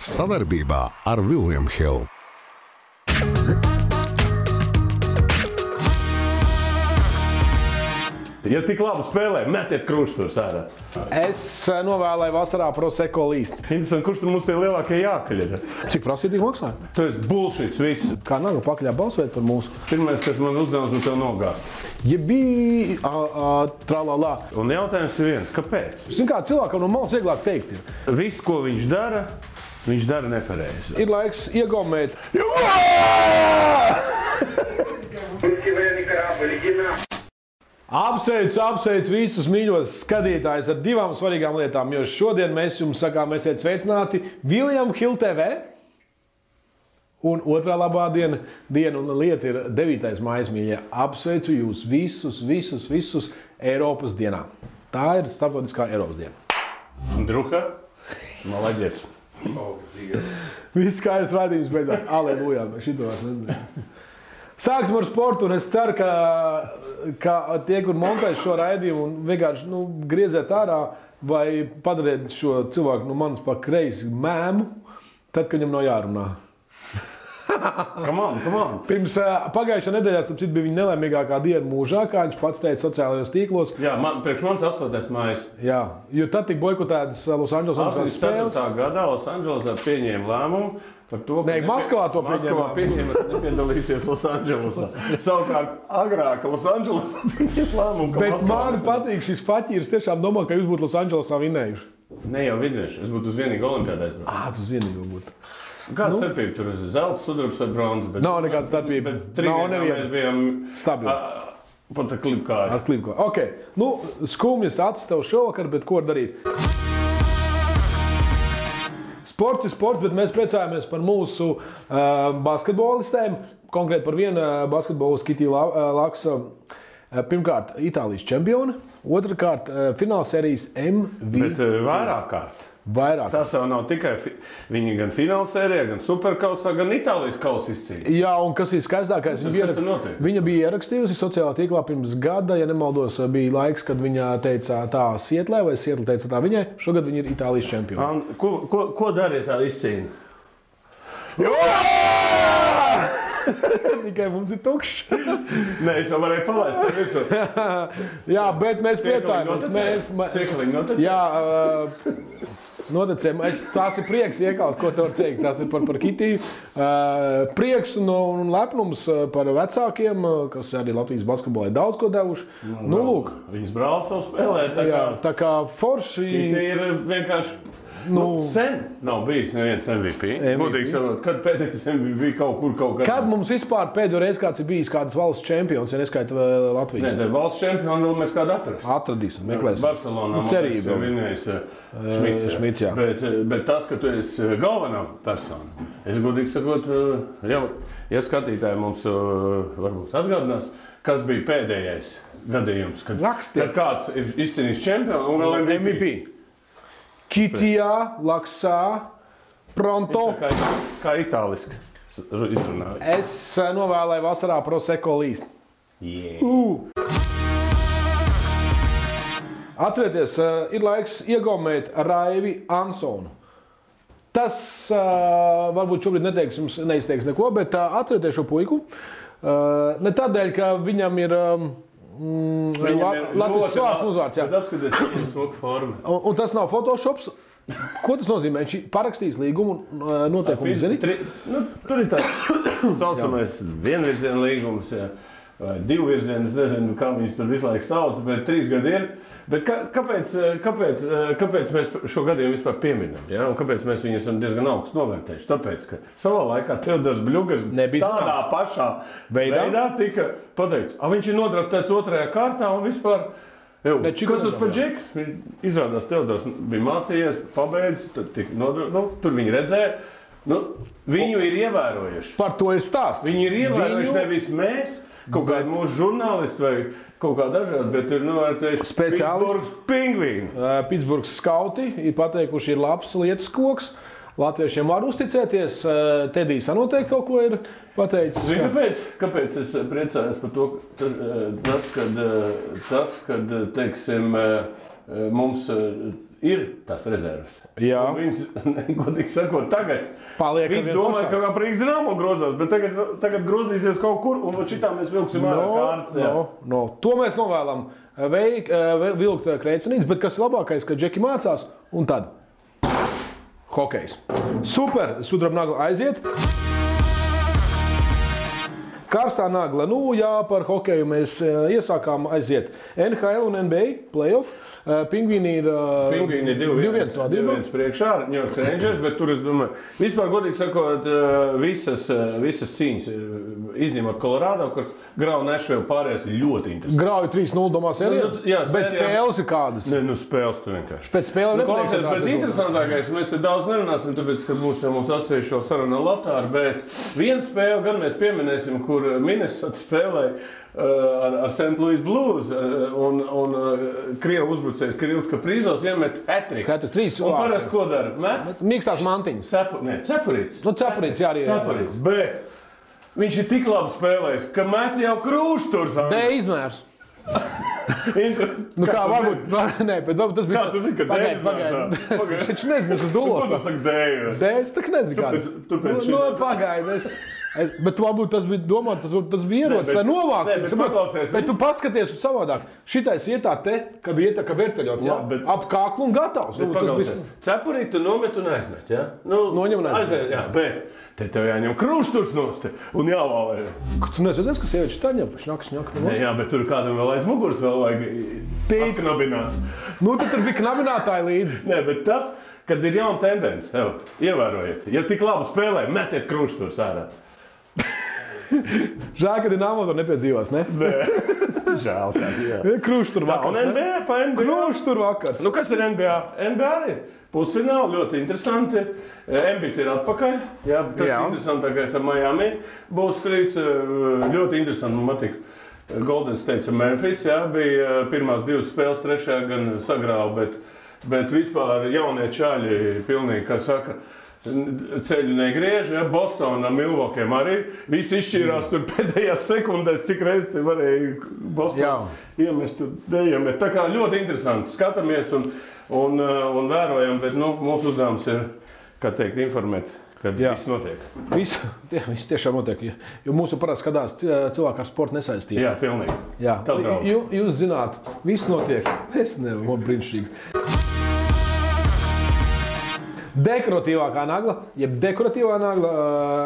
Sadarbībā ar William Hill. Ja tik labi spēlē, metiet kruštus ārā. Es novēlēju vasarā Prosecco līst. Interesanti, kurš tur mums tie lielākie jākaļ ir? Cik prasītīgi maksāja? Tu esi bullshits viss. Kā Naga pakaļā balsojot par mūsu? Pirmais, kas man uzdevums, un tev nogāst. Ja bija tralalā. Un jautājums ir viens, kāpēc? Zin kā, cilvēkam no malas vieglāk teikt ir. Viss, ko viņš dara nepareizi. Ir laiks iegaumēt. Apsveic visus mīļos skatītājus ar divām svarīgām lietām, jo šodien mēs jums sakām, esiet sveicināti William Hill TV. Un otrā labā diena un lieta ir 9. maijas, mīļie. Apsveicu jūs visus Eiropas dienā. Tā ir starptautiskā Eiropas diena. Druha, malaģiets. Viss skaidrs raidījums beidzās. Aleluja, šito es nezinu. Sāksim ar sportu, un es ceru, ka tie, kur montēs šo raidījumu un vienkārši grieziet ārā vai padariet šo cilvēku no manis pa kreisi mēmu, tad, kad viņam nav jārunā. Come on. Pirms pagājušā nedēļā, starp citu, bija viņa nelaimīgākā diena mūžā, kā viņš pats teica sociālajos tīklos. Jā, priekš manis 8. mājas. Jā, jo tad tika boikotētas Los Angeles spēles. 84. gadā Los Angelesā pieņēma lēmumu par to, ka Maskavā to pieņēma, nepiedalīsies Los Angelesā. Savukārt agrāk Los Angelesā pieņēma lēmumu, ka Bet man patīk šis faķīrs, tiešām domā, ka jūs būtu Los Angelesā vinnējuši. Ne jau vinnējuši, es būtu uz vienīgu olimpiādu aizbraucu. Tu uz vienīgu būtu. Kāda starpība tur ir zelts, sudrabs vai bronzas? Nav nekāda starpība. Nav neviena. Mēs bijām stabili. Pat ar klipkāju. Ar klipkāju. Ok. Skumjas acis tev šovakar, bet ko darīt? Sports ir sports, bet mēs priecājamies par mūsu basketbolistēm. Konkrēti par vienu basketbolistu Kitī Laksa. Pirmkārt, Itālijas čempione. Otrakārt, finālsērijas MVP. Bet vairāk kārt. Tas jau nav tikai viņi gan finālsērijā, gan superkausā, gan Itālijas kausa izcīņa. Jā, un kas ir skaistākais, viņa bija ierakstījusi sociālā tīklā pirms gada, ja nemaldos, bija laiks, kad viņa teica tā Sietlē, vai Sietla teica tā viņai. Šogad viņa ir Itālijas čempione. Ko darīja tā izcīņa? Tikai mums ir tukšs. Nē, es jau varēju palaist tev visu. Jā, bet mēs priecājamies. Siekaliņi notecēja? Jā, notecēja. Tās ir prieks iekals, ko te var teikt. Tas ir par Kitī. Prieks un lepnums par vecākiem, kas arī Latvijas basketbolē daudz ko devuši. Lūk. Viņas brālis savu spēlē. Tā kā forši. Kitī ir vienkārši... sen nav bijis neviens MVP. Būtīgi sakot, kad pēdējais MVP bija kaut kur. Kad mums vispār pēdējo reizi kāds ir bijis kādas valsts čempions, ja neskaita Latvijas? Nē, valsts čempionu vēl mēs kādu atradīsim, meklēsim. Barcelonā cerība vienējais Šmits, jā. Bet tas, ka tu esi galvenā persona, es godīgi sakot, jau, ja skatītāji mums varbūt atgādinās, kas bija pēdējais gadījums, kad kāds ir izcīnījis čempionu un vēl MVP. Kitijā, Laksā, Pronto. Kā itāliski izrunāju. Es novēlēju vasarā Prosecco līst. Atcerieties, ir laiks iegaumēt Raivi Ansonu. Tas varbūt šobrīd neizteiks neko, bet atcerieties šo puiku. Ne tādēļ, ka viņam ir... Latvijas vārds uzvārds, jā. Bet apskaties, viņam smuka forma. Un tas nav Photoshops. Ko tas nozīmē? Viņš parakstīs līgumu noteikumu, zini? Tur ir tāds saucamais vienvirziena līgums, vai divvirziena, es nezinu, kā viņus tur visu laiku sauc, bet 3 gadi ir. Bet kāpēc mēs šo gadījumu vispār pieminam? Ja? Un kāpēc mēs viņu esam diezgan augstu novērtējuši? Tāpēc, ka savā laikā Teodors Bļugars tādā pašā veidā tika pateikts. Viņš ir nodraftēts 2. kārtā un vispār... Kas tas par džeks? Izrādās Teodors bija mācījies, pabeidz, tur viņi redzēja. Viņu ir ievērojuši. Par to ir stāsts. Viņi ir ievērojuši nevis mēs, kaut kādi mūsu žurnālisti vai kaut kā dažādi, bet ir novērtējuši Pitsburgas pingvīni. Pitsburgas skauti ir pateikuši, ir labs lietus koks. Latviešiem var uzticēties. Tedijs noteikti kaut ko ir pateicis. Zini, kāpēc es priecājos par to, tas, kad teiksim, mums ir tās rezerves. Jā. Un viņas, godīgi sakot, tagad Visi domāja, ka kā Rīgas Dynamo grozās, bet tagad grozīsies kaut kur, un šitā mēs vilksim ārā kārtas. To mēs novēlam vilkt Kreicenītes, bet kas ir labākais, ka Džeki mācās, un tad hokejs. Super, sudraba nagla aiziet. Karstā nagla, par hokeju mēs iesākām aiziet NHL un NBA playoff. Pingvīni ir 2-1 priekšā ar New York Rangers, bet tur, es domāju, vispār godīgi sakot, visas cīņas, izņemot Colorado, kas grauj Nashville pārējās ir ļoti interesanti. Grauj 3-0 domā sērijā? Bet spēles ir kādas? Ne, spēles tu vienkārši. Pēc spēlēm nepatīk. Bet interesantākais, mēs te daudz nerunāsim, tāpēc, ka būs jau mums atsevišķi vēl saruna Latāra, bet vienu spēli gan mēs pieminēsim, kur Minnesota spēlēja ar St. Louis Blues un Krievu uzbrucējs Kirillis Kaprizovs iemet hat-trick. Un parasti ko dara? Met? Mīkstās mantiņas. Cepurīts. Cepurīts, jā arī. Cepurīts, bet viņš ir tik labi spēlējis, ka met jau krūšturs. D izmērs. Kā varbūt, bet varbūt tas bija... Kā tu zini, ka D izmērs? Es taču nezinu, es uz dulos. Ko tu saki D? D, es tak nezinu kāds. Pagaid, bet varbūt tas bija domāt, tas bija ierocis, lai novāktu. Bet tu paskaties uz savādāk. Šitais iet tā te, kad iet tā kā verteļots, ap kāklu un gatavs. Cepurīt tu nomet un aizmet, jā? Noņem un aizmet. Jā, bet te tev jāņem krūšturs nost un jāvalē. Tu nezināsi, ka sievieši tā ņem, šņak. Jā, bet tur kādam vēl aiz muguras vēl vajag knabināt. Tad tur bija knabinātāji līdzi. Nē, bet tas, kad ir jauna tendence, ievērojiet, ja tik labi spēlē, metiet krūšturs ārā. Žēl, ka Dinamo to nepiedzīvās, ne? Nē, žēl tāds, jā. Krūštur vakars, ne? Un NBA pa NBA. Krūštur vakars. Kas ir NBA? NBA arī pusfināli, ļoti interesanti. Embits ir atpakaļ, jā, tas ir interesantākais ar Miami. Būs strīds, ļoti interesanti, man patīk. Golden State ar Memphis, jā, bija pirmās 2 spēles, trešajā gan sagrāva, bet vispār jaunie čaļi pilnīgi, kā saka, ceļu negriež, ja? Bostonā, Milvokiem arī. Visi izšķīrās tur pēdējās sekundēs, cik reiz te varēja Bostonā iemest tur neiemet. Tā kā ļoti interesanti. Skatāmies un vērojam, bet mūsu uzdevums ir, kā teikt, informēt, kad viss notiek. Viss tiešām notiek, jo mūsu parasti skatās cilvēku ar sportu nesaistību. Jā, pilnīgi. Jā. Jūs zināt, viss notiek. Es nevaru, brīnišķīgi. Dekoratīvākā nagla, jeb dekoratīvā nagla,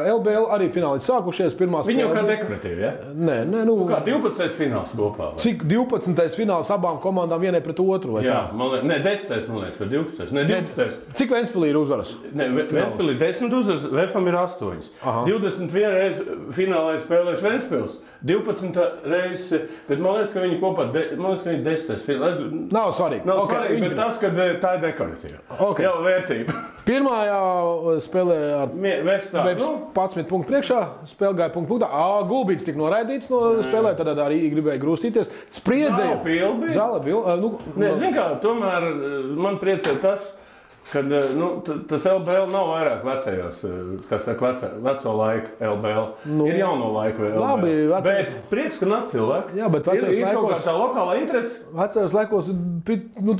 LBL arī fināli sākušies pirmās. Viņi jau kā dekoratīvi, ja? Nē. Kā 12. fināls kopā? Vai? Cik 12. fināls abām komandām vienai pret otru? Jā, man liekas, 10. man liekas, vai 12. Ne, 12. Cik Ventspilī ir uzvaras? Ne, Ventspilī 10 uzvaras, VFam ir 8. 21 reizi finālā ir spēlējuši Ventspils. 12 reizes, bet man liekas, ka viņi kopā, man liekas, ka viņi 10. fināls. Nav svarīgi. Nav svarīgi, bet tas, ka tā ir dekoratīva. Jau vērtība. Pirmajā spēlē ar Vefs 11 punktu priekšā, spēle gāja punktā. Gulbīts tika noraidīts no spēlē, tad arī gribēja grūstīties. Spriedzēja. Zāle bija. Zin kā, tomēr man priecē tas, ka tas LBL nav vairāk vecajos, kā saka, veco laiku LBL. Ir jauno laiku LBL. Labi, bet prieks, ka nāk cilvēki. Jā, bet vecajos laikos... Ir kaut kā tā lokālā interese. Vecajos laikos,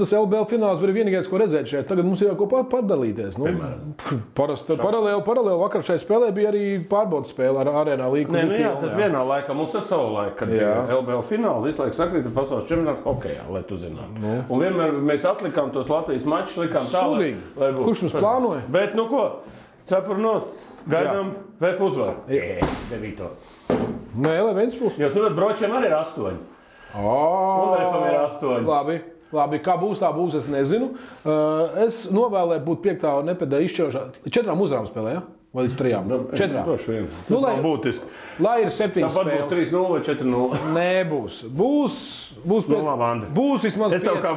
tas LBL fināls bija vienīgais, ko redzēt šeit. Tagad mums ir jau ko padalīties. Paralēli vakar šai spēlē bija arī pārbaudas spēle ar Arēnā līgu. Jā, tas vienā laikā. Mums ir savu laiku, kad bija LBL fināli. Visu laiku sakrīt pasaules čempionāts hokejā, lai tu zinātu. Un vienmēr mēs atlikām tos Latvijas mačus, likām tālāk. Kurš mums plānoja? Bet, cepur nost. Gaidām VF uzvaru. 9. Nē, Ventspils. Jo, savat, Bročiem arī ir 8. Un VFam ir 8. Labi, kā būs, tā būs, es nezinu. Es novēlēju būt 5. nepēdē izšķirošā. 4 uzvarām spēlē, ja? Vai līdz 3? 4. Tas nav būtiski. Lai ir 7 spēles. Tāpat būs 3-0 vai 4-0. Nebūs. Būs vismaz 5. Es tev kā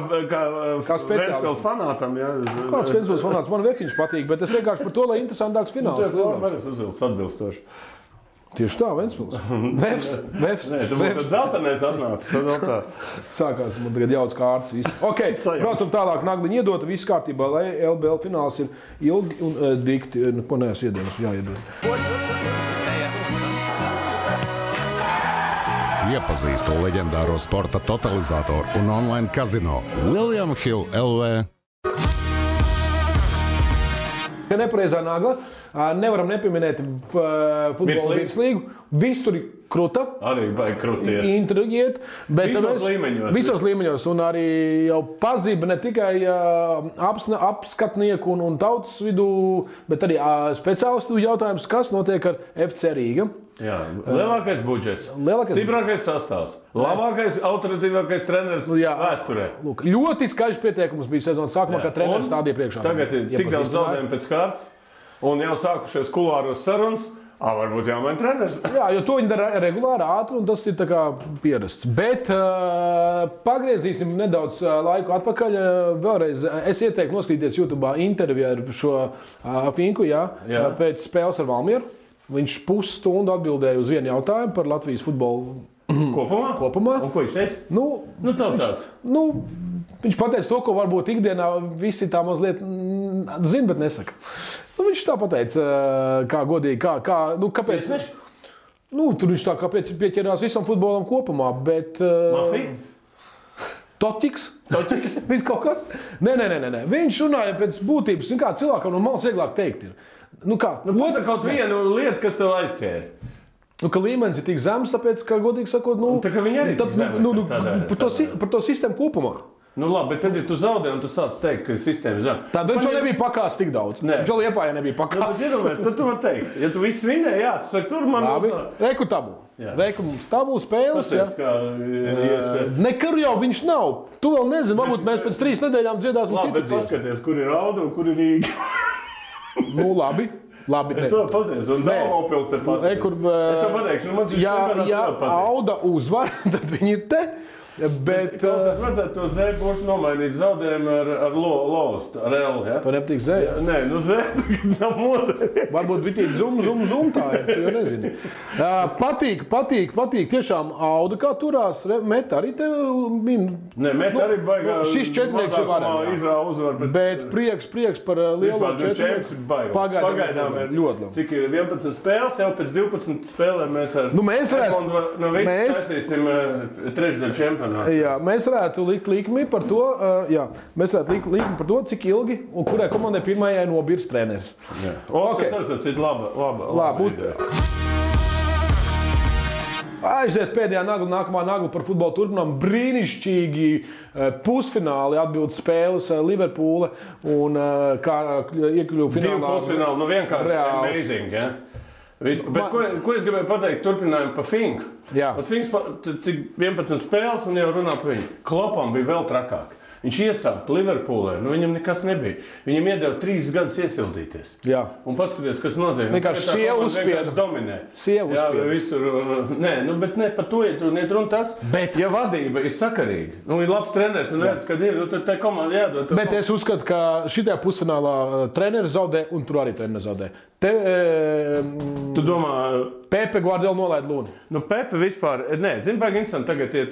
Ventspils fanātam, jā. Kāds Ventspils fanāts? Man Vefiņš patīk, bet es vienkārši par to, lai interesantāks fināls. Tu esi uzvilcis atbilstoši. Tieši tā, Ventspils. Vefs. Nē, tu būtu zeltenēs atnācis. Sākās, man tagad jauc kārtas. Ok, braucam tālāk, nagliņa iedota, viss kārtībā, lai LBL fināls ir ilgi un dikti. Ko neesmu iedienas, jāiedod. Iepazīstu leģendāro sporta totalizatoru un online kazino William Hill LV. Nepareizā nagla. Nevaram nepieminēt futbola virslīgu. Visur ir kruta. Arī vajag krutiet. Intrigiet. Visos līmeņos. Visos līmeņos. Un arī jau pazība ne tikai apskatnieku un tautas vidū, bet arī speciālistu jautājums, kas notiek ar FC Rīga. Jā, lielākais budžets, stiprākais sastāvs, labākais, autoritīvākais treneris vēsturē. Lūk, ļoti skaļš pieteikums bija sezonas sākumā, kad treneris stādīja priekšā. Tagad ir tik daudz zaudējumu pēc kārtas, un jau sākušies kulāros sarunas. Varbūt jāmaina treneris. Jā, jo to viņi dara regulāri, ātri, un tas ir tā kā pierasts. Bet pagriezīsim nedaudz laiku atpakaļ. Vēlreiz es ieteiktu noskatīties YouTube interviju ar šo Finku, pēc spēles ar Valmieru. Viņš pusstundu atbildēja uz vienu jautājumu par Latvijas futbolu kopumā. Un ko viņš teica? Viņš pateica to, ko varbūt ikdienā visi tā mazliet zina, bet nesaka. Viņš tā pateica, kā godīgi, kāpēc. Tur viņš tā kā pieķerās visam futbolam kopumā, bet... Mafija? Toķiks? Viss kaut kas? Nē. Viņš runāja pēc būtības, kā cilvēkam no malas vieglāk teikt ir. Pasaka kaut vienu lietu, kas tev aizķēra. Ka līmenis ir tik zems, tāpēc, ka, godīgi sakot, tā kā viņi arī tik zemi. Par to sistēmu kopumā. Labi, bet tad, ja tu zaudē un tu sāc teikt, ka sistēma zem. Tad viņš jau nebija pakās tik daudz. Viņš jau Liepājā nebija pakās. Tad tu vari teikt. Ja tu viss vinēji, tu saki, tur man... Labi, reku tabu. Reku mums tabu spēles. Nekar jau viņš nav. Tu vēl nezini, varbūt mēs pēc 3 nedēļām dziedāsim citu. Labi, bet paskaties, kur ir Auda un kur ir Rīga. Labi. Es to paziņos, un Daugavpils te paziņos. Es to pateikšu, ja Auda uzvar, tad viņi ir te. Bet es vajadzētu to Zēju būtu nomainīt zaudējumu ar Lostu, ar L. Ja? To nepatīk Zēja? Nē, Zēja nav modē. Varbūt bitīt zum tā ir, tu jau nezini. Patīk. Tiešām Auda kā turās, Meta arī te min. Nē, Meta arī baigā. Šis četrnieks ir varēja. Bet prieks par lielo četrnieku. Pagaidām ir ļoti labi. Cik ir 11 spēles, jau pēc 12 spēlēm mēs ar mēs saistīsim trešdaļu čempionu. Jā, mēs varētu likt likmi par to, cik ilgi un kurai komandai pirmajai nobīrs treneris. Tas ir laba ideja. Aiziet pēdējā nagla, nākamā nagla par futbolu turpinām. Brīnišķīgi pusfināli atbildes spēles Liverpoola un kā iekļuva finālā. 2 pusfināli, vienkārši amazing, ja? Bet ko es gribēju pateikt, turpinājumu pa Finku. Finks cik 11 spēles un jau runā par viņu. Klopam bija vēl trakāk. Viņš iesāka Liverpoolē, viņam nekas nebija. Viņam iedeva 3 gadus iesildīties. Un paskaties, kas notiek. Vienkārši sieva uzspieda. Dominē. Sieva uzspieda. Visur. Bet ne par to, ja tu netrun tas. Ja vadība ir sakarīga, ir labs treneris un redz, kad ir, tad tai komanda jādod. Bet es uzskatu, ka šitajā pusfinālā treneris zaudē un tur arī treneris zaudē. Tu domā... Pepe Guardiola nolaid Luni. Pepe vispār... Zini, baigi interesanti tagad iet...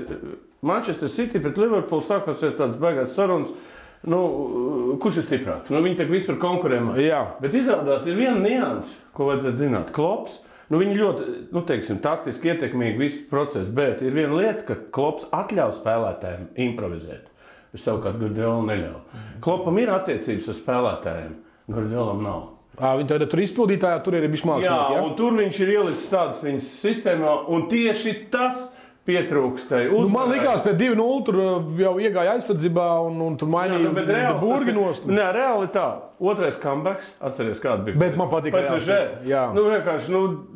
Manchester City pret Liverpoolu sākosies tādas baigās sarunas. Kurš ir stiprāks? Viņi tak visur konkurēmā. Bet izrādās ir viena nianse, ko vajadzētu zināt. Klops, viņi ļoti, taktiski ietekmīgi visu procesu, bet ir viena lieta, ka Klops atļauj spēlētājiem improvizēt. Es savukārt Guardiola neļauj. Klopam ir attiecības ar spēlētājiem, Guardiolam nav. Viņi tad tur izpildītājā, tur ir bišķi mākslinieki, un tur viņš ir ielicis tādas viņas sistēmā, un tieši tas pietrūkstai uzvarēt. Man likās, pēc 2-0 tur jau iegāja aizsardzībā un tur mainīja burginos. Nē, reāli tā. Otrais comebacks, atceries kāda bija. Bet man patīk PSG. Vienkārši,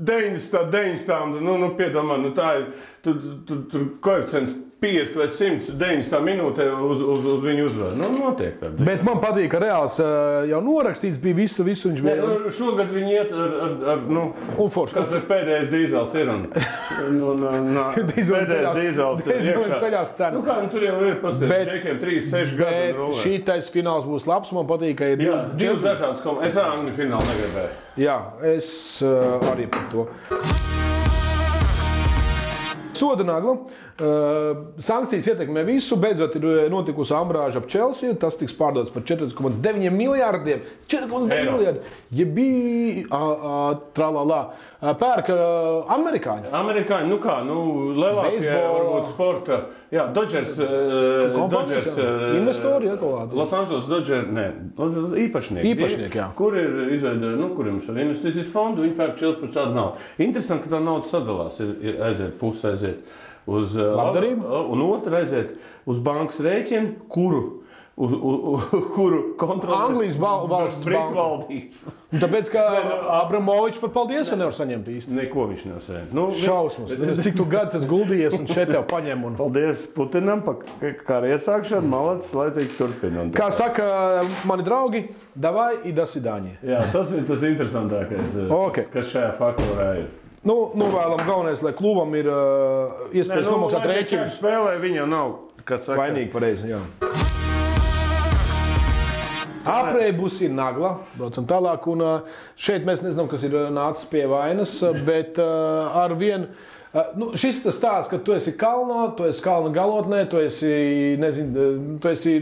90, piedomā, tā ir, tur koeficients 50 vai 100, 90 minūtē uz viņu uzvaru. Notiek tāda. Bet man patīk, ka reāls jau norakstīts bija visu viņš bija. Šogad viņi iet ar kas ir pēdējais dīzels ir pēdējais dīzels ir iekšā. Tur jau ir pastāvēt džekiem 3-6 gadu. Bet šitais fināls būs labs, man patīk, ka ir... Divas dažādas komandas. Es ar Angļu finālu negribēju. Jā, es arī par to. soda nagla. Sankcijas ietekmē visu. Beidzot ir notikusi ambrāža ap Chelsea. Tas tiks pārdots par 4,9 miljārdiem. 4,9 miljārdi. Ja bija tralalā. Pērka amerikāņi. Amerikāņi, lielākie varbūt sporta. Jā, Dodgers investori atklāti. Los Angeles Dodgers, īpašnieki, jā. Kur ir izveidojumi, kuriem ir investīcijas fondu, viņi pērk 14% naudu. Interesanti, ka tā nauda sadalās, aiziet puse aiziet uz labdarību, un otra aiziet uz bankas rēķinu, kuru kontrolēs Anglijas valsts Britu valdība. Tāpēc, ka Abramovičs pat paldies, ka nevar saņemt īsti. Neko viņš nevar saņemt. Šausmas. Cik tu gads esi guldījies un šeit tev paņem. Paldies Putinam par kāru iesākšanu. Malacis, lai tik turpina. Kā saka mani draugi, davai i do svidāņa. Jā, tas ir tas interesantākais, kas šajā faktorā ir. Vēlam galvenais, lai klubam ir iespējas nomaksāt rēķinus. Spēlē viņa nav, kas saka. Vainīgi pareizi, jā. Aprēbus ir nagla, braucam tālāk, un šeit mēs nezinām, kas ir nācis pie vainas, bet ar vienu, šis tas stāsts, ka tu esi kalnā, tu esi kalna galotnē, tu esi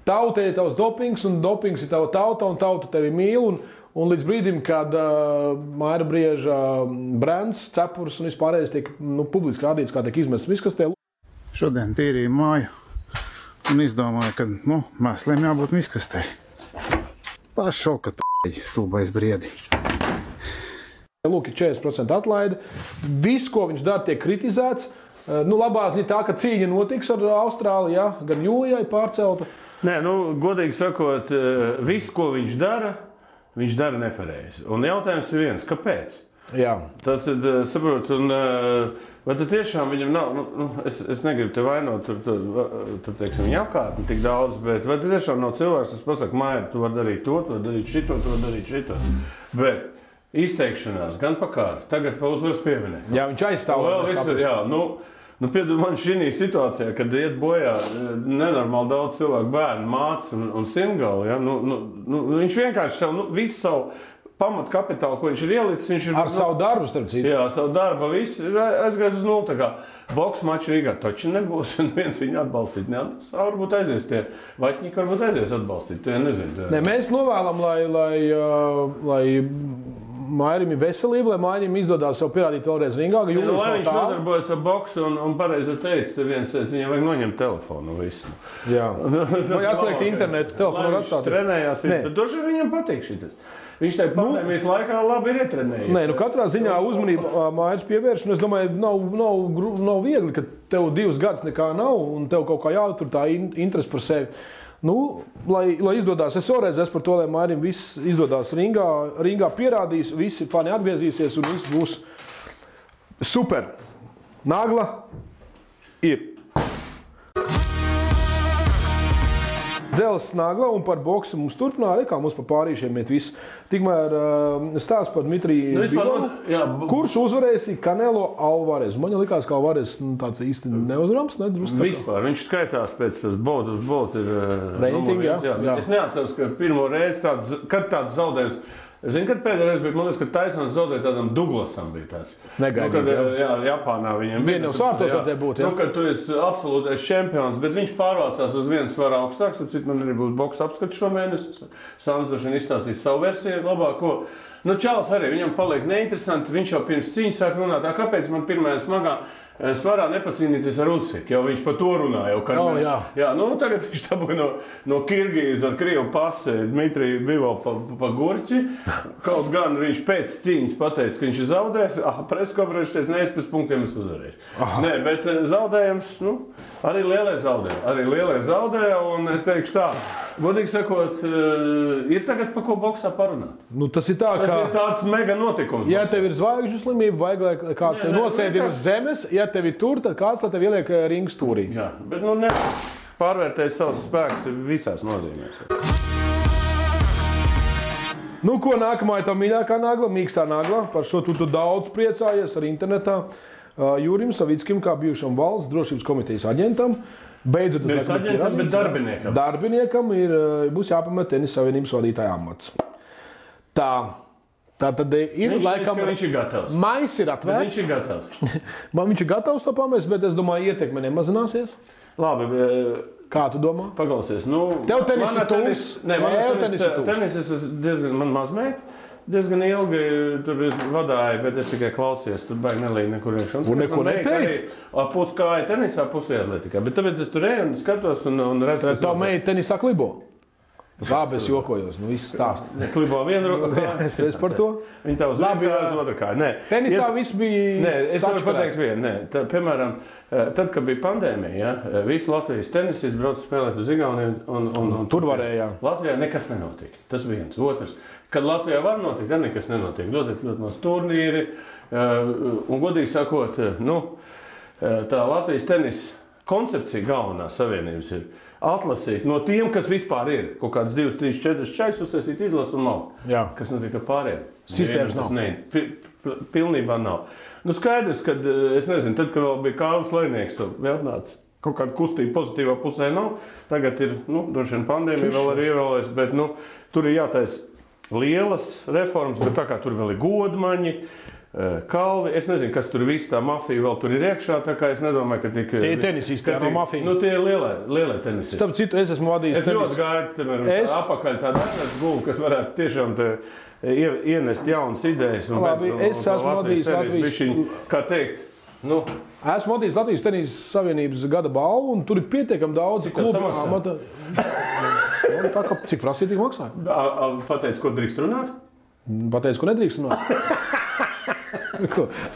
tautai tavs dopings, un dopings ir tava tauta, un tauta tevi mīl, un līdz brīdim, kad Maira Brieža brands, cepurs un vispārējais tiek publiski rādīts, kā tiek izmests miskastē. Šodien tīrīju māju un izdomāju, ka mēsliem jābūt miskastē. Pašau, ka tu stulbais briedi. Lūk, ir 40% atlaide. Viss, ko viņš dara, tiek kritizēts. Labā ziņa tā, ka cīņa notiks ar Austrāliju, jā, gan jūlijai pārcelta. Nē, godīgi sakot, viss, ko viņš dara nepareizi. Un jautājums ir viens, kāpēc? Jā. Tas ir, saprotu, un vai tad tiešām viņam nav, es negribu te vainot, tur teiksim, viņa apkārtni tik daudz, bet vai tad tiešām nav cilvēks, kas pasaka, Maira, tu vari darīt to, tu vari darīt šito, tu vari darīt šito. Bet izteikšanās gan pa kāru, tagad pa uzvaras pieminēt. Jā, viņš aizstāv. Piedod man šī situācijā, kad iet bojā nenormāli daudz cilvēku, bērnu, mātes un simgali, ja, viņš vienkārši visu savu pamatu kapitālu, ko viņš ir ielicis, viņš ir... Ar savu darbu, starp citu. Jā, savu darbu, visu aizgājis uz nulli. Tā kā boks maču Rīgā taču nebūs, un viens viņu atbalstīt neatbalstīt. Varbūt aizies tie vaķņiki, varbūt aizies atbalstīt, to nezinu. Nē, mēs novēlam, lai Mairim ir veselība, lai Mairim izdodās sev pierādīt vēlreiz ringā, ka jūlis lai viņš nodarbojas ar boksu un pareizi teica, te viens teica, viņam vajag noņemt telefonu visu. Jā. Vai atslēgt internetu, telefonu var atstāt. Viņš trenējās, bet droši viņam patīk šitas. Viņš tajā pandēmijas laikā labi ir ietrenējies. Nē, katrā ziņā uzmanība Mairis pievērš, un es domāju, nav viegli, ka tev 2 gadus nekā nav, un tev kaut kā jātur tā interesi par sevi. Lai izdodās, es vēlreiz esmu par to, lai Mairim viss izdodās ringā pierādīs, visi fani atgriezīsies un viss būs super. Nagla ir. Dzelzs nagla un par boksu mums turpināja, kā mums pa pārīšiem iet viss. Tikmēr stāsts par Dmitriju Bivolu, kurš uzvarēs Canelo Alvarez. Man likās, ka Alvarez tāds īsti neuzrams, nedrusku. Vispār, viņš skaitās pēc tas bolt ir reitingi, jā. Es neatceros, ka pirmo reizi kad tāds zaudējums. Zini, kad pēdējais bija, man liekas, ka Taisons zaudēja tādam Douglasam bija tāds. Negaidīt, jā, Japānā viņam. Vien jau svārtos vajadzēja būt, jā. Kad tu esi absolūtais čempions, bet viņš pārvācās uz vienu svaru augstāks, tad man arī būs boks apskats šomēnesi. Sāns droši izstāstīs savu versiju labāko. Čāls arī, viņam paliek neinteresanti, viņš jau pirms cīņas sāk runāt, kāpēc man pirmajā smagā svarā nepacīnīties ar Usiku, jo viņš par to runāja. Tagad viņš dabūja no Kirgīzes ar Krievu pasi Dmitriju Bivolu pa gurķi. Kaut gan viņš pēc cīņas pateica, ka viņš ir zaudējis. Preskonferences teica, ne, es pēc punktiem esmu uzvarējis. Nē, bet zaudējums, arī lielie zaudēja, un es teikšu tā, godīgi sakot, ir tagad pa ko boksā parunāt. Tas ir tāds mega notikums. Ja tev ir zvaigžņu slimība, vajag, lai kāds tev nosēdina uz zemes, ja tev ir tur, tad kāds tev ieliek ringu stūrī. Jā, bet pārvērtēs savus spēkus visās nozīmēs. Ko nākamā ir tā mīļākā nagla, mīkstā nagla. Par šo tu daudz priecājies arī internetā. Jurim Savickim, kā bijušam valsts drošības komitejas aģentam. Beidzot, bet darbiniekam. Darbiniekam būs jāpamet Tenisa Savienības vadītāja amats. Tā. Tā tad ir laikam... Viņš ir gatavs. Mais ir atvērts. Viņš ir gatavs. Man viņš ir gatavs to pamest, bet es domāju, ietekme nemazināsies. Labi. Kā tu domā? Paklausies. Nu, tev tenis ir tūs. Tenis es diezgan, man mazmēt. Diezgan ilgi tur vadāju, bet es tikai klausījos. Tur baigi nelīja nekur iekšā. Un neko neteici? Puskāja tenisā, pusē atletikā. Bet tāpēc es tur eju un skatos un redzu. Tā meita tenisā klibo? Labi, es jokojos, nu viss stāst. Klibo vienu roku. Es par to. Viņa tā uz vienu kāju, uz otru kāju. Nē. Tenisā viss bija Nē, es varu pateikt vienu. Nē. Piemēram, tad, kad bija pandēmija, visi Latvijas tenisisti brauca spēlēt uz Igauniju un tur varēja. Latvijā nekas nenotika. Tas viens. Otrs. Kad Latvijā var notikt, tad nekas nenotiek. Ļoti maz turnīri. Un godīgi sakot, tā Latvijas tenisa koncepcija galvenā savienības ir atlasīt no tiem, kas vispār ir. Kaut kāds 2, 3, 4 čaiks uztaisīt izlasu un nav. Jā. Kas notiek ar pārējiem? Sistēmas nav. Pilnībā nav. Skaidrs, kad, es nezinu, tad, kad vēl bija Kārlis Lejnieks, vēl nāca. Kaut kāda kustība pozitīvā pusē nav. Tagad ir, droši vien pandēmija vēl arī ievēlēs, bet, tur ir jātaisa lielas reformas, bet tā kā tur vēl ir godmaņi, kalvi, es nezinu, kas tur viss tā mafija vēl tur ir iekšā, tā kā es nedomāju, ka tik... Tie ir tenisisti, no mafija. Tie ir lielie tenisisti. Starp citu, es esmu vadījis tenis. Es ļoti gaidu, apakaļ tādu gulu, kas varētu tiešām ienest jaunas idejas. Labi, es esmu vadījis Latvijas... Kā teikt, Esmu vadījis Latvijas Tenisa Savienības gada balvu, un tur ir pietiekami daudz klubu. Tā kā cik prasīja, tik maksāja. Pateic, ko drīkst runāt? Pateic, ko nedrīkst runāt.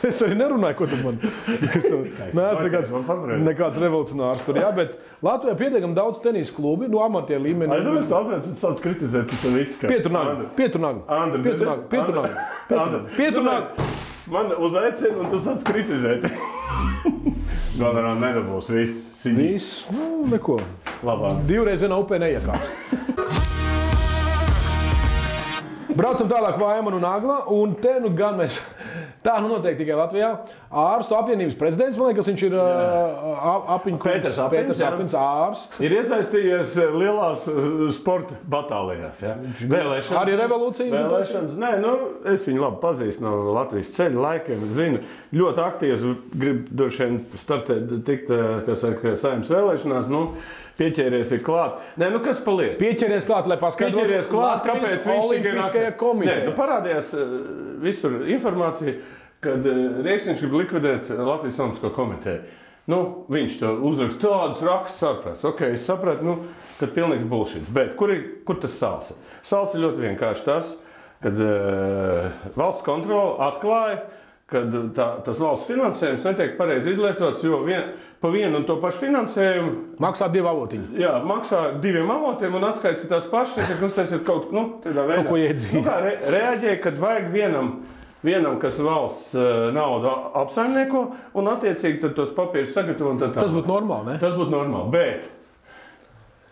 Es arī nerunāju, ko tu man. Neesmu nekāds revolucionārs tur, jā, bet Latvijā pietiekami daudz tenisa klubi, amatieru līmenī. Es tāpēc sāc kritizēt, tas ir viss. Pieturnagu. Man uzaicina, un tu sāc kritizēt. Galvenā nedabūs viss. Viss, neko. Labāk. Divreiz vienā upē neiekāps. Braucam tālāk Vaimanu un Agla, un te gan mēs, tā notiek tikai Latvijā, ārstu apvienības prezidents, man liekas, viņš ir Pēters Apins ārsts. Ir iesaistījies lielās sporta batālijās, ja? Vēlēšanas. Arī revolūcija? Vēlēšanas, nē, es viņu labi pazīstu no Latvijas ceļa laikiem, zinu, ļoti aktīvs, grib droši vien startēt, tikt, kas saka, Saeimas vēlēšanās, pieķēries ir klāt. Nē, kas paliek? Pieķēries klāt, lai paskaidrotu. Pieķēries klāt, kāpēc viņš Olimpiskajā komitejā. Nē, parādījās visur informācija, kad Rieksniņš grib likvidēt Latvijas Olimpisko komiteju. Viņš to uzraksta tādus rakstus ārprāts. Ok, es sapratu, kad pilnīgs bullshits. Bet kur tas sāls? Sāls ir ļoti vienkārši tas, kad valsts kontrole atklāja, kad tas valsts finansējums netiek pareizi izlietots, jo pa vienu un to pašu finansējumu... Maksā 2 avotiņi. Jā, maksā 2 avotiem un atskaits tās pašas, tas ir tādā veidā. Kaut ko iedzīvi. Reaģēja, kad vajag vienam, kas valsts naudu apsaimnieko, un attiecīgi tad tos papīrus sagatavo un tā. Tas būtu normāli, ne? Tas būtu normāli, bet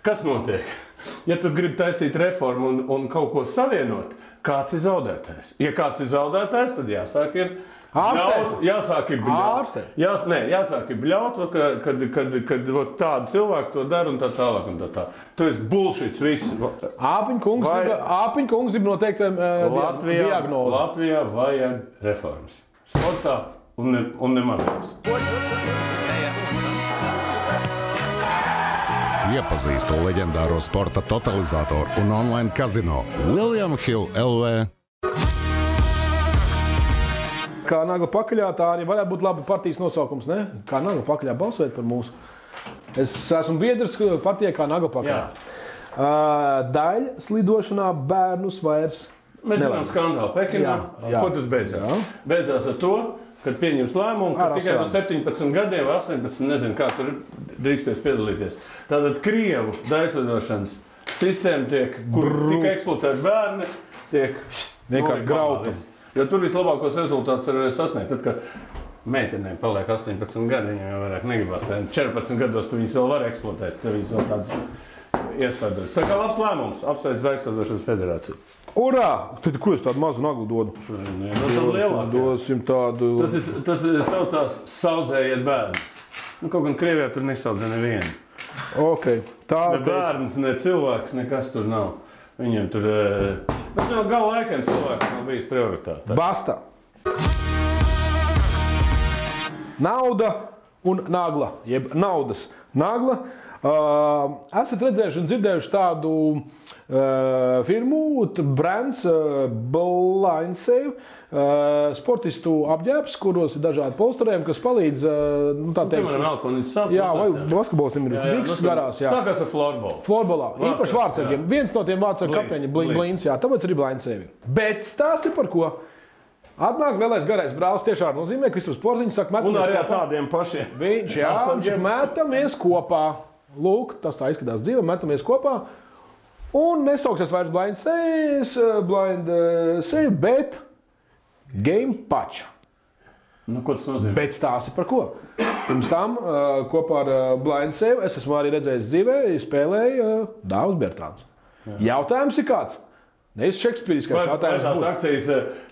kas notiek? Ja tu gribi taisīt reformu un kaut ko savienot, kāds ir zaudētājs? Ja kāds ir zaudētājs, tad jāsāk ir... Jāsāk ir bļaut. Jāsāk ir bļaut, kad tādi cilvēki to dara un tā tālāk un tā tā. Tu esi bullshits viss. Āpiņkungs grib noteikti diagnozi. Latvijā vajag reformas. Sportā un nemazās. Iepazīstu leģendāro sporta totalizatoru un online kazino William Hill LV. Kā Nagla pakaļā, tā arī varētu būt labi partijas nosaukums, ne? Kā Nagla pakaļā balsojot par mūsu. Es esmu biedrs partijai kā Nagla pakaļā. Daļa slidošanā bērnus vairs Mēs zinām skandālu Pekinā. Ko tas beidzās? Jā. Beidzās ar to, kad pieņems lēmumu, ka tikai no 17 gadiem vai 18, nezinu, kā tur drīksties piedalīties. Tātad Krievu daļslidošanas sistēma tiek, kur tika eksploatēti bērni, tiek vienkārši grauta. Jo tur vislabākos rezultātus var sasniegt. Tad, kad meitenēm paliek 18 gadi, viņiem jau vairāk negribās. 14 gados tu viņus vēl var eksploatēt. Tev viņus vēl tāds iespējas. Tā kā labs lēmums, apsveic Daļslidošanas federāciju. Urā! Tad ko es tādu mazu Naglu dodu? Dosim tādu... Tas saucās saudzējiet bērnus. Kaut gan Krievijā tur nesaudzē nevienu. Ok. Ne bērns, ne cilvēks, nekas tur nav. Viņiem tur... Bet no gala laikiem cilvēkiem nav bijis prioritāte. Basta. Nauda un nagla, jeb naudas nagla. Esat redzējuši un dzirdējuši tādu firmu, brands Blind Save, sportistu apģērbs, kuros ir dažādi polsterējumi, kas palīdz, tā teikt... Piemēram, Elkonītis sāp. Jā, vai basketbols viņam ir biks garās, jā. Sākās ar florbola. Florbolā. Īpaši vārdsargiem. Viens no tiem vārdsargu kapteiņi Blinds, jā, tāpēc arī Blind Save. Bet stāsti par ko? Atnāk lielais garais brālis tiešām nozīmē, ka Kristaps Porziņš saka, metamies kopā. Un arī kopā. Tādiem pašiem. Viņš, jā, viņš metamies kopā. Lūk, tas tā izskatās dzīve, metamies kopā. Un nesauksies vairs Blind Save, bet Game Patch. Nu, ko tas nozīmē? Bet stāsti par ko? Pirms tam kopā ar Blind Save es esmu arī redzējis dzīvē, spēlēju Dāvs Bertāns. Jautājums ir kāds? Nevis šekspīriskais jautājums. Vai tās akcijas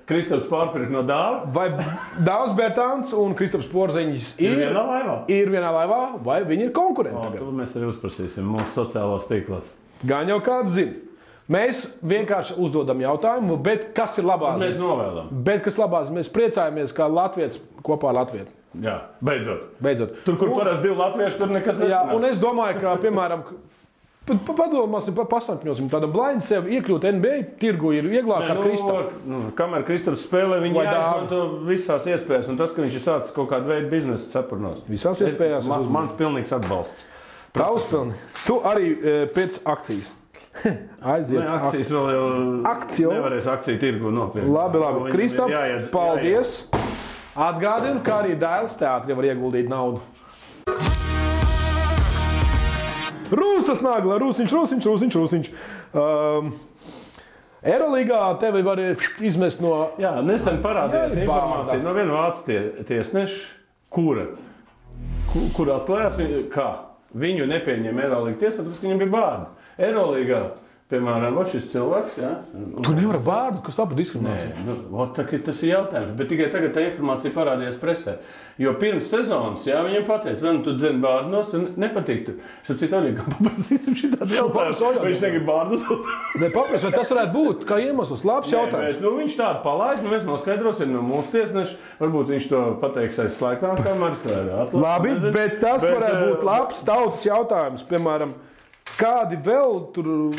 Kristaps pārpirka no Dāva? Vai Dāvs Bertāns un Kristaps Porziņš ir vienā laivā? Ir vienā laivā, vai viņi ir konkurenti? To mēs arī uzprasīsim mūsu sociālos tīklos. Gan jau kāds zina. Mēs vienkārši uzdodam jautājumu, bet kas ir labās? Mēs novēlam. Bet kas labās? Mēs priecājamies, kā latvietis kopā ar latvietu. Jā, beidzot. Tur, kur parasti divi latvieši, tur nekas nesanāk. Jā, un es domāju, ka, piemēram, padomāsim, pasakņosim, tāda Blind Save iekļūt NBA tirgu ir vieglāk ar Kristapu. Kamēr Kristaps spēlē, viņi jāizmanto visās iespējas, un tas, ka viņš ir sācis kaut kādu veidu biznesa cepurnos. Visās iespējās. Mans pilnīgs atbalsts. Tavs pilni. Tu arī pēc akcijas. Aiziet. Akcijas vēl jau nevarēs akciju tirgu nopirkt. Labi. Kristap, paldies. Atgādinu, ka arī Dailes teātri var ieguldīt naudu. Rūsas nagla, Rūsiņš. Eurolīgā tevi var izmest no... Jā, nesen parādījās informācija no viena vācu tiesneša, kur atklājās, kā viņu nepieņem Eurolīga tiesā, tāpēc, ka viņam bija vārdi. Eurolīgā, piemēram, šis cilvēks, jā. Tu nevari vārdu, kas tā par diskrimināciju? Nē, tas ir jautājums, bet tikai tagad tā informācija parādījās presē. Jo pirms sezonas, jā, viņiem pateica, vai nu tu dzeni bārdos, tu nepatīk. Es ar citu Oļegam paprasīsim šitādu jautājumu, vai viņš negrib bārdus. Ne, paprasīt, vai tas varētu būt kā iemesls, labs jautājums. Bet, viņš tādu palaid, mēs noskaidrosim no mūsu tiesneša, varbūt viņš to pateiks aiz slēgtām kameras. Labi, bet tas varētu būt labs tautas jautājums, piemēram, kādi vēl tur,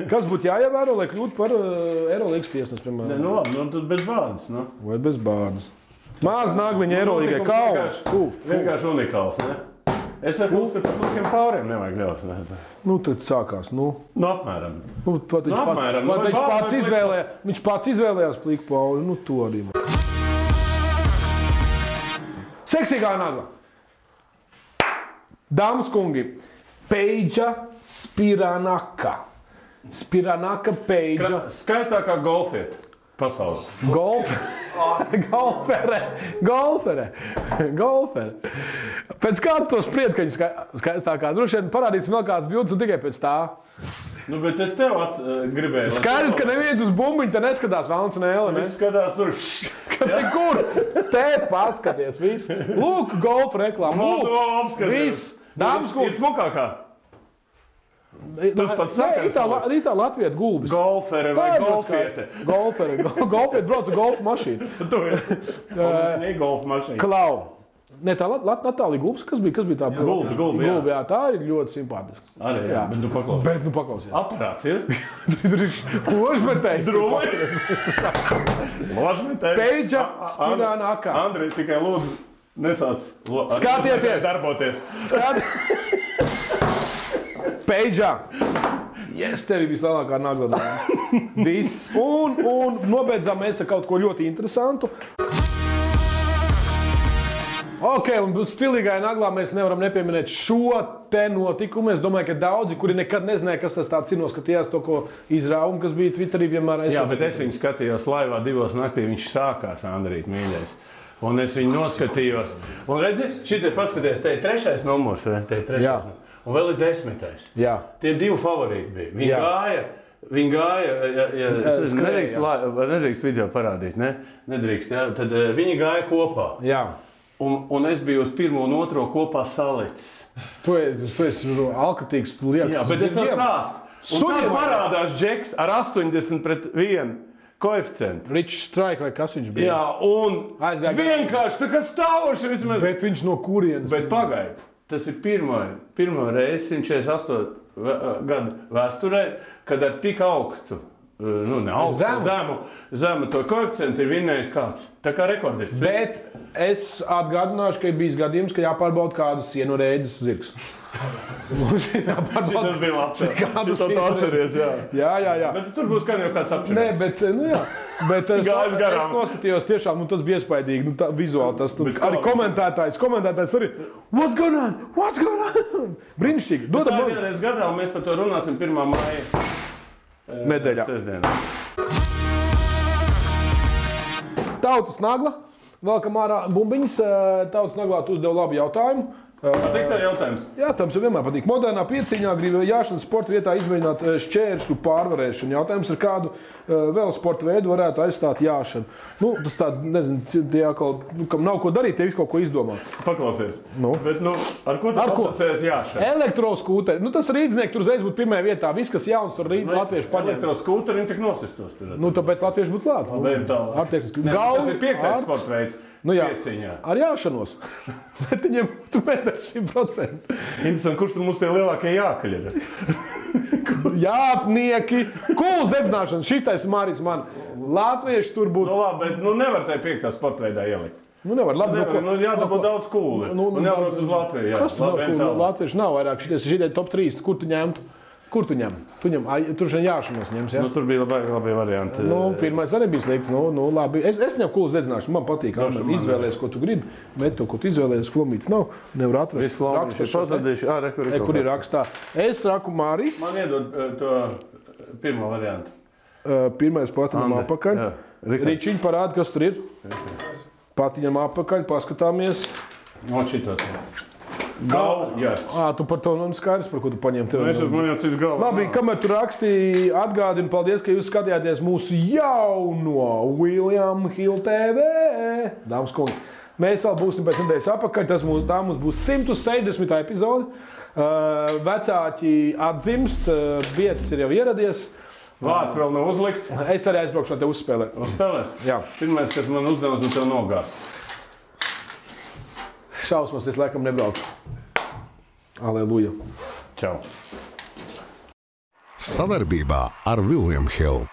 kas būtu jāievēro, lai kļūtu par Eurolīgas tiesnesi, piemēram? Nu labi, tad bez bārdas, nu. Vai bez bārdas. Maz nagliņa Eurolīgai kauns. Vienkārši unikāls, ne? Es saku, ka tiem pāriem nevajag ļaut. Nu, tad sākās, nu. Nu, apmēram. Viņš pats izvēlējās plīku pauli, nu, to arī. Seksīgā nagla. Dāmas kungi. Peidža Spiranaka. Peidža. Skaistākā golfieta pasaulē. Golfere. Pēc kā tu to spried, ka viņa skaistākā? Droši vien parādīsim vēl kāds bildes un tikai pēc tā. Nu, bet es tev gribēju. Skaidrs, ka neviens uz bumbiņu te neskatās Valns un Ēle, ne? Viss skatās tur. Kur? Te paskaties, viss. Lūk, golfa reklāma. Lūk, viss. Dāmas kungi. Ir smukākā. Tu pats saki. Tā Latvijat gulbis. Golfere vai golfiete? Golfiete brauc ar golfa mašīnu. Tu ir golfa mašīna. Klau. Ne, tā Natālija gulbis, kas bija tā? Gulbi, jā. Tā ir ļoti simpātiska. Arī, jā, bet nu paklausies. Aparāts ir? Tur ir ložmetējs. Ložmetējs. Peidža Spiranaka. Andrej, tikai lūdzu. Nesāc skatieties! Darboties! Peidžā! Yes, tev ir vislielākā nagla. Viss. Un nobeidzām mēs ar kaut ko ļoti interesantu. Ok, un stilīgai naglā mēs nevaram nepieminēt šo te notikumu. Es domāju, ka daudzi, kuri nekad nezināja, kas tas tāds ir, noskatījās to, ko izrāvumu, kas bija Twitterī vienmēr. Jā, bet es viņu skatījos laivā 2 naktī, viņš sākās, Andrīt, mīļais. Un es viņu noskatījos. Un redzi, šitie paskaties, te ir 3. numurs, te ir 3. numurs. Un vēl ir 10. Jā. Tie 2 favorīti bija. Viņi gāja, nedrīkst video parādīt, ne? Nedrīkst, jā. Tad viņi gāja kopā. Jā. Un es biju uz 1. un 2. kopā salicis. Tu esi alkatīgs. Jā, bet es to stāstu. Un tad parādās Džeks ar 80-1 koeficientu. Rich Strike vai kas viņš bija? Jā, un vienkārši tā kā stāvoši vismaz. Bet viņš no kurienes? Bet pagaidi, tas ir pirmo reizi 148 gadu vēsturē, kad ar tik augstu, zemu to koeficientu ir vinnējis kāds. Tā kā rekordists. Bet es atgādināšu, ka ir bijis gadījums, ka jāpārbauda kādu sienu rēģis zirgs. Tas bija labs. Kādu sienu atceries, jā. Bet tur būs gan jau kāds apčurēs. Nē, bet, Bet es noskatījos tiešām, tas bija iespaidīgi, vizuāli tas. Arī komentētājs arī, what's going on? Brīnišķīgi. Tā ir vienreiz gadā, un mēs par to runāsim 1. māja nedēļā. Sestdienā. Tautas Nagla, velkam ārā bumbiņas. Tautas Naglā tu uzdev labu jautājumu. Patīk tā jautājums? Jā, tam vienmēr patīk. Modernā pieciņā grib jāšanas sporta vietā izmēģināt šķēršļu pārvarēšanu. Jautājums ir, kādu vēl sporta veidu varētu aizstāt jāšanu. Tas tāds, nezinu, tie atkal, kam nav ko darīt, tie visu kaut ko izdomā. Paklausies. Bet, ar ko tu asociējies jāšana? Elektroskūteri. Tas rīdznieki tur uzreiz būtu pirmajā vietā. Viss, kas jauns, tur latvieši paņem. Elektroskūteri, viņi tik nosistos. Tāpēc latvieši būtu klāt. Tas ir 5. sporta veids. Pieciņā. Ar jāšanos. Bet viņiem tu mēdēs 100%. Interesanti, kurš tur mums tie lielākie jākaļ ir? Jāpnieki, kūls dedzināšana. Šitais Māris man. Latvieši tur būtu. Labi, bet nevar tai 5. sporta veidā ielikt. Nevar, labi. Jādabū daudz kūli. Un jābrauc uz Latviju. Kas tu nav kūli? Latvieši nav vairāk. Šitie top 3. Kur tu ņemtu? Kur tu ņem? Tur šeit jāšanos ņems, jā? Tur bija labi varianti. Pirmais arī bija slikts. Labi. Es ņemu kūles dedzināšanu. Man patīk, izvēlēs, ko tu gribi. Bet to, ko tu izvēlēs, flomīts nav. Nevar atrast. Kur ir rakstā. Es saku Māris. Man iedod to pirmo variantu. Pirmais patiņam apakaļ. Ričiņ parāda, kas tur ir. Patiņam apakaļ, paskatāmies. Šito to. Galvjārds. Tu par to skaidrs, par ko tu paņem. Man jau cits galvas. Labi, kamēr tu rakstīji, atgādinu, paldies, ka jūs skatījāties mūsu jauno William Hill TV. Dāmas kungi, mēs vēl būsim pēc nedēļas apakaļ. Tā mums būs 160. epizode. Vecāki atdzimst, vietas ir jau ieradies. Vārti vēl nav uzlikt. Es arī aizbraukšu no tev uzspēlēt. Uzspēlēs? Jā. Pirmais, kas man uzdevums, no tev nogāst. Šausmas, es laikam nebraucu. Aleluja. Čau. Sadarbībā ar William Hill.